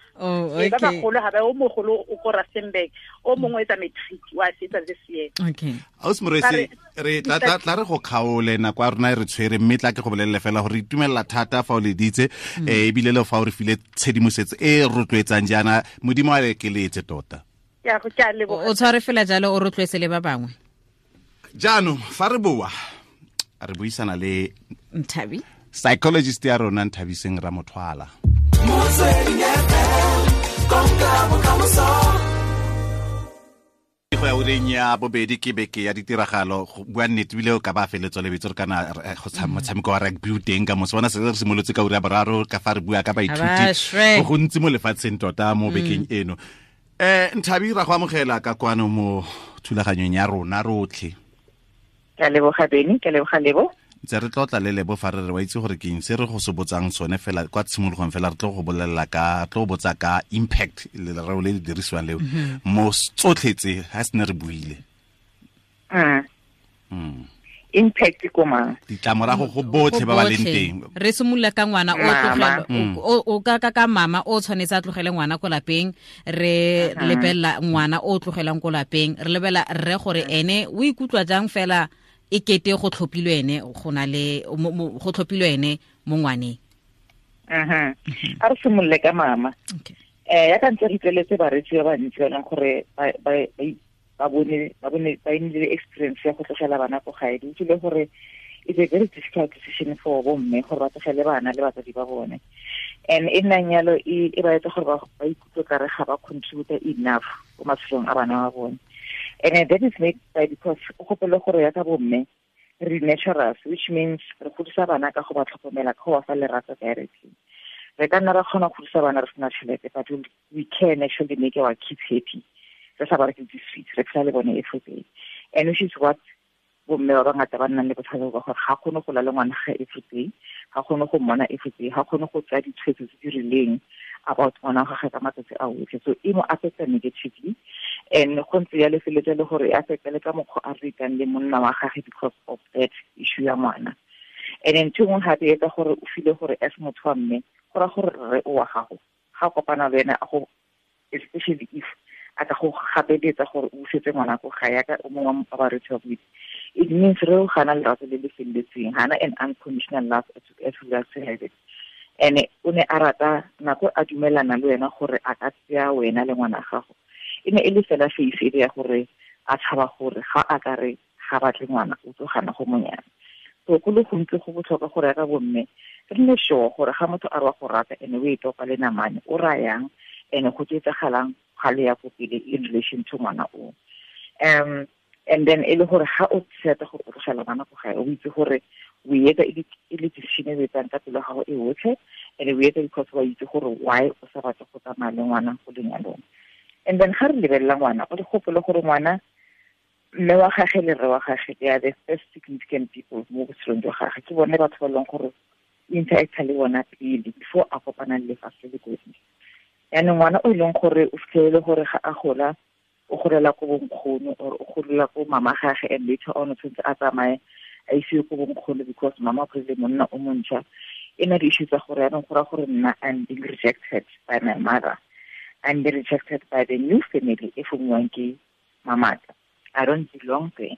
Ba bagolo ga ba, o mogolo o ko Rustenburg, o mongwe etsa matric wa fetsa this year. Okay. Ausi Morwesi, re tla re go kgaole nako ya rona e re tshwere, mme tla ke go bolelele fela gore itumelela thata fa o leditse, ebile le fa o re file tshedimosetso e rotloetsang jaana, Modimo a le keletse tota. O tshware fela jalo, o rotloetse le ba bangwe. Jaanong fa re boa re buisana le Nthabi, psychologist ya rona Nthabiseng Ramothwala. Go ya ureng ya bobedi ke beke ya ditiragalo, go bua nnete bile o ka ba feletswa lebitso re kana go motshameko wa rugby o teng ka moso, bona se re simolotse ka ura ya boraro ka fa re bua ka baithuti go gontsi mo lefatsheng tota mo bekeng eno. Nthabi, ra go amogela ka kwano mo thulaganyong ya rona rotlhe. Ke a leboga Benny, ke a leboga Lebo. Ntse re tlotla le Lebo fa re re wa itse gore ke eng se re go se botsang sone fela kwa tshimologong fela, re tlo go bolelela ka, tlo botsa ka impact lereo le le dirisiwang leo mo tsotlhe tse ga se ne re buile. Impact ko mang? Ditlamorago go botlhe ba ba leng teng. Re simolola ka ngwana o tlogela o ka mama o tshwanetse a tlogele ngwana ko lapeng, re lebelela ngwana o tlogelang ko lapeng, re lebela rre gore ene o ikutlwa jang fela e kete go tlhophilwe ene, go na le go tlhophilwe ene mo ngwaneng. A re simolole ka mama. Ya ka ntse re tleletse baretsi ba bantsi ba leng gore ba bone ba nnile experience ya go tlogela bana ko gae. Di utlwile gore it's a very difficult decision for bomme gore ba tlogele bana le batsadi ba bone, and e nnang yalo e ba etsa gore ba ikutlwe kare ga ba contribute enough ko matshelong a bana ba bone. And that is made by because o gopole gore ya ka bomme re naturals, which means re godisa bana ka go ba tlhokomela, ka go ba fa lerato directly. Re ka nna ra kgona go godisa bana re sena tšhelete, but we can actually make our kids happy. Re sa ba reke di-sweets, re phela le bone every day. And which is what bomme ba bangata ba nnang le bothata ba gore ga kgone go la le ngwana ga every day, ga kgone go mmona every day, ga kgone go tsaya ditshwetso tse di rileng about ngwana wa gagwe ka matsatsi a otlhe. So e mo affecta negatively, and go ntse ya lefeletsa le gore e affecta le ka mokgwa a retang le monna wa gagwe because of that issue ya ngwana. And then ntho e nngwe gape e etsa gore o feel gore as motho wa mme, go raya gore rre o wa gago ga kopana le wena, go especially if a ka go gapeletsa gore o busetse ngwana ko gae yaka o mongwe wa baretsi wa boitse, it means re o gana lerato le le feleletseng, gana an unconditional love as we are to have it. And o ne a rata nako a dumelana le wena gore a ka tseya wena le ngwana gago, e ne e le fela face e le ya gore a tshaba gore ga a ka re ga batle ngwana o tlo gana go monyana. So go le gontsi go botlhokwa gore ya ka bomme re nne sure gore ga motho a re wa go rata ene o e topa le namane o rayang, ene go tsetsagalang ga le ya ko pele in relation to ngwana o. And then e le gore ga o tseta go tlogela ngwana ko gae, o itse gore o etsa e le decision e etsang ka pelo gago e otlhe, and o etsa because wa itse gore why o sa batle go tsamaya le ngwana go lenyalong. And then ga re lebelela ngwana, o le gopole gore ngwana mme wa gagwe le rre wa gagwe, they are the first significant people mo botshelong jwa gagwe. Ke bone batho ba leng gore interacta le bona pele before a kopana le lefatshe le kotsi. Yaanong ngwana o e leng gore o fitlhelele gore ga a gola o golela ko bonkgono or o golela ko mama gagwe, and later on o tshwanetse a tsamaye a isiwe ko bonkgono because mama o kry-ile monna o montšha. E na di-issue tsa gore yaanong go raya gore nna I'm being rejected by my mother, I'm being rejected by the new family e fomiwang ke mamaka, I don't belong there.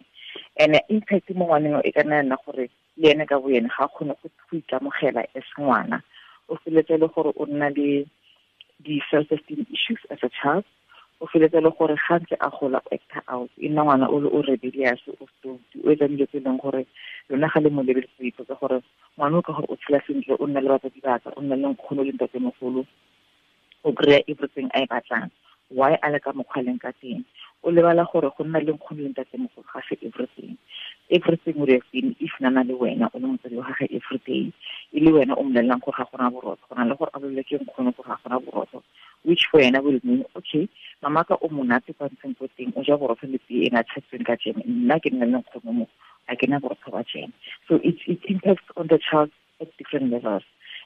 And impact mo ngwaneng e ka nna nna gore le ene ka bo ene ga a kgone go ikamogela as ngwana, o feletse le gore o nna le di-self-esteem issues as a child, o feletse le gore ga ntse a gola o acta out, e nna ngwana o le o rebellious, o stoutu, o etsa dilo tse e leng gore lona ga le mo lebeletse o ipotsa gore ngwana o ka gore o tshela sentle, o nna le batsadi ba ka, o nna le nkgono le ntatemogolo, o kry-a everything a e batlang, why a le ka mokgwa leng ka teng? O lebala gore go nna le nkgono le ntatemogolo ga se everything. Everything would have been if nana le wena o le motsadi wa gagwe every day, e le wena o mmolelelang gore ga gona borotho, go na le gore a bolele ke nkgono gore ga gona borotho, which for wena will mean okay, mama ka o monate kwa ntseng ko teng, o ja borotho le tee e na tshetsweng ka jeme, nna ke nna le nkgono mo, a ke na borotho ba jeme. So it impacts on the child at different levels.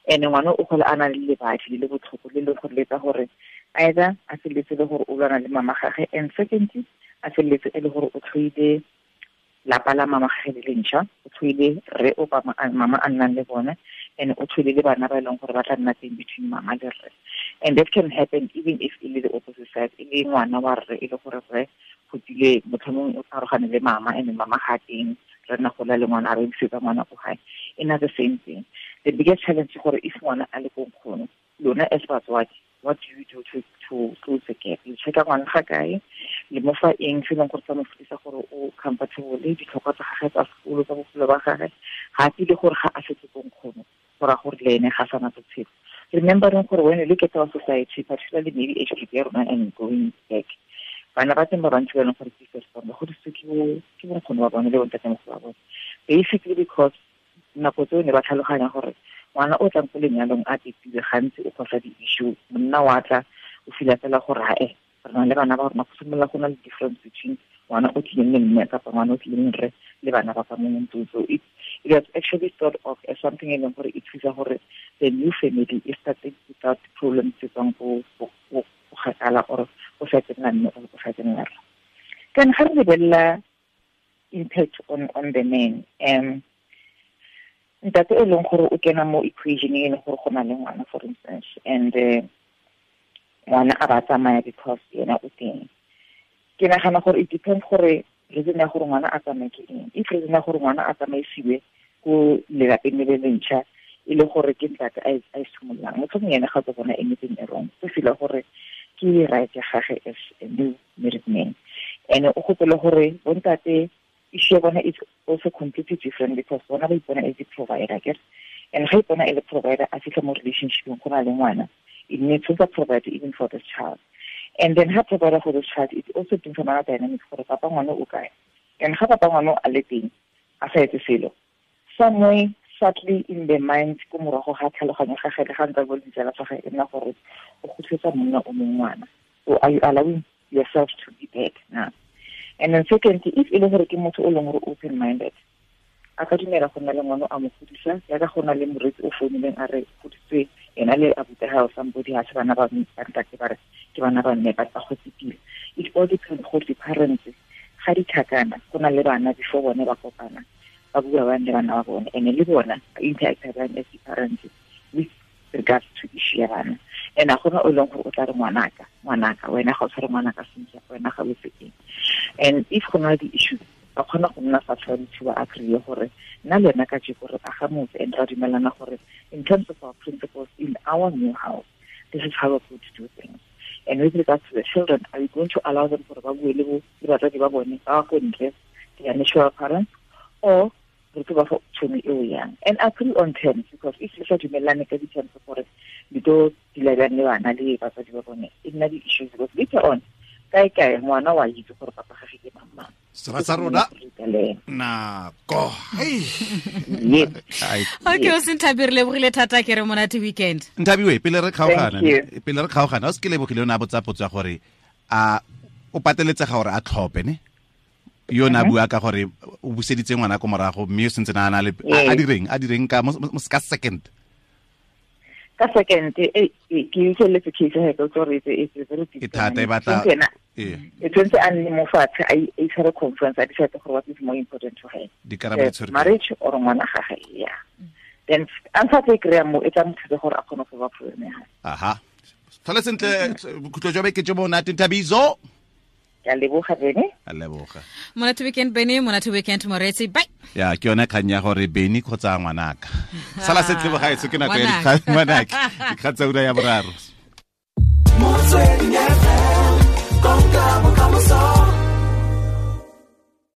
And ngwana o gola a na le lebadi le le botlhoko le le gore le etsa gore either a feleletse le gore o lwana le mama gagwe, and secondly a feleletse e le gore o tlhoile lapa la mama gagwe le lentšha, o tlhoile rre o mama a nnang le bone, and o tlhoile le bana ba e leng gore ba tla nna teng between mama le rre. And that can happen even if e le the opposite side, e le ngwana wa rre e le gore rre go tsile motlhomong o arogane le mama, and mama ga teng, re nna gola le ngwana a re busetsa ngwana ko gae. E na the same thing. The biggest challenge ke gore if ngwana a le ko nkgono, lona as batswadi, what do you do to close the gap? You check ngwana ga kae, le mo fa eng se leng gore sa mo fetisa gore o comfortable, ditlhokwa tsa gagwe tsa sekolo tsa bophelo ba gagwe, ga a tsile gore ga a setse ko nkgono, go raya gore le ene ga sana botshelo. Remembering gore when you look at our society, particularly maybe age group ya rona and going back, bana ba teng ba bantsi ba leng gore ke first born, ba godisitswe ke bonkgono ba bone le bontatemogolo ba bone, basically because nako tseo ne ba tlhaloganya gore ngwana o tlang ko lenyalong a pepilwe gantsi o kgosa di-issue, monna wa tla o fila fela gore ae re na le bana ba rona, go simolola go na le difference between ngwana o tlileng le mme kapa ngwana o tlileng rre le bana ba ka mo ntlong. So it was actually thought of as something e leng gore e thusa gore the new family e started without problems tse tswang ko kgakala or go sa tsenela mme or go sa tsenela rre. Then ga re lebelela impact on the man, ntate e leng gore o kena mo equation e leng gore go na le ngwana for instance, and ngwana a ba tsamaya because yena o teng. Ke nagana gore it depends gore reason ya gore ngwana a tsamaye ke eng. If reason ya gore ngwana a tsamaisiwe ko lelapeng le le lentšha e le gore ke ntate a e simololang, motlhomong ene ga tlo bona anything e wrong, o feel gore ke right ya gagwe as a new married man. And o gopole gore bontate issue ya bona is also completely different because bona ba ipona as a provider, ke and ga ipona e le provider a fitlha mo relationship go na le ngwana, it needs to provide even for this child. And then ha provider for this child, it also brings another dynamic gore papa ngwana o kae, and ga papa ngwana a le teng a sa etse selo, somewhere subtly in the mind ko morago ga tlhaloganyo ga gagwe le ga ntse a bua le ditsala tsa gagwe, e nna gore o kgotletsa monna o mongwe ngwana. So are you allowing yourself to be bad now? And then secondly, if e le gore ke motho o leng gore open-minded, a ka dumela go nna le ngwana a mo godisa, jaaka go na le moreetsi o founileng a re godisitswe Ena le abuti ga somebody ha se bana ba ntate ba re ke bana ba mme ba go tsipile. It all depends go di parents ga di tlhakana go na le bana before bone ba kopana ba bua ba le bana ba bone and le bona interact bana as parents with regards to issue ya bana. And a gona o leng gore o tla re ngwanaka wena ga o tshware ngwanaka sentle, wena ga o se eng. And if go na le di-issues ba kgona go nna fa tshwanetse ba agree gore nna le wena ka jeko re aga motse and ra dumelana gore in terms of our principles in our new house, this is how we're going to do things. And with regards to the children, are we going to allow them gore ba bue le batsadi ba bone ba ko ntle, their natural parents, or re tlo ba fa tšhono eo yang? And agree on terms, because if le sa dumelane ka di-terms gore le tlo dula bjang le bana le batsadi ba bone, e nna di-issues because later on kae kae ngwana wa itse gore papa gage ke mang mang. Sera sa rona nako. Okay, o se Nthabi, re lebogile thata, ke re monate weekend. Nthabi, pele re kgaogana, o se ke lebogile o ne a botsa potso ya gore a o pateletsega gore a tlhophe ne? Yo na bua ka gore o buseditse ngwana ko morago mme o sentse na le a direng ka ka second. Ka second ke utlweletse case ya ka gore it's very difficult. E thata e batla e tshwanetse a nne mo fatshe a itshware conference a decide gore what is more important to her, marriage or ngwana gagwe. Yeah, then answer tse kry-a mo e tla mo thusa gore a kgone go ba problem ya gagwe. Aha, tlhole sentle, bokhutlo jwa beke jo monate, Nthabiso. Ke a leboga Bene. A leboga. Monate weekend Bene, monate weekend Moretsi. Bye. Ya, ke yone kgang ya gore Bene kgotsa ngwanaka. Sala sentle bogaetsho, ke nako ya dikgang ngwanaka. Dikgang tsa ura ya boraro. Motsweding FM, konka bokamoso.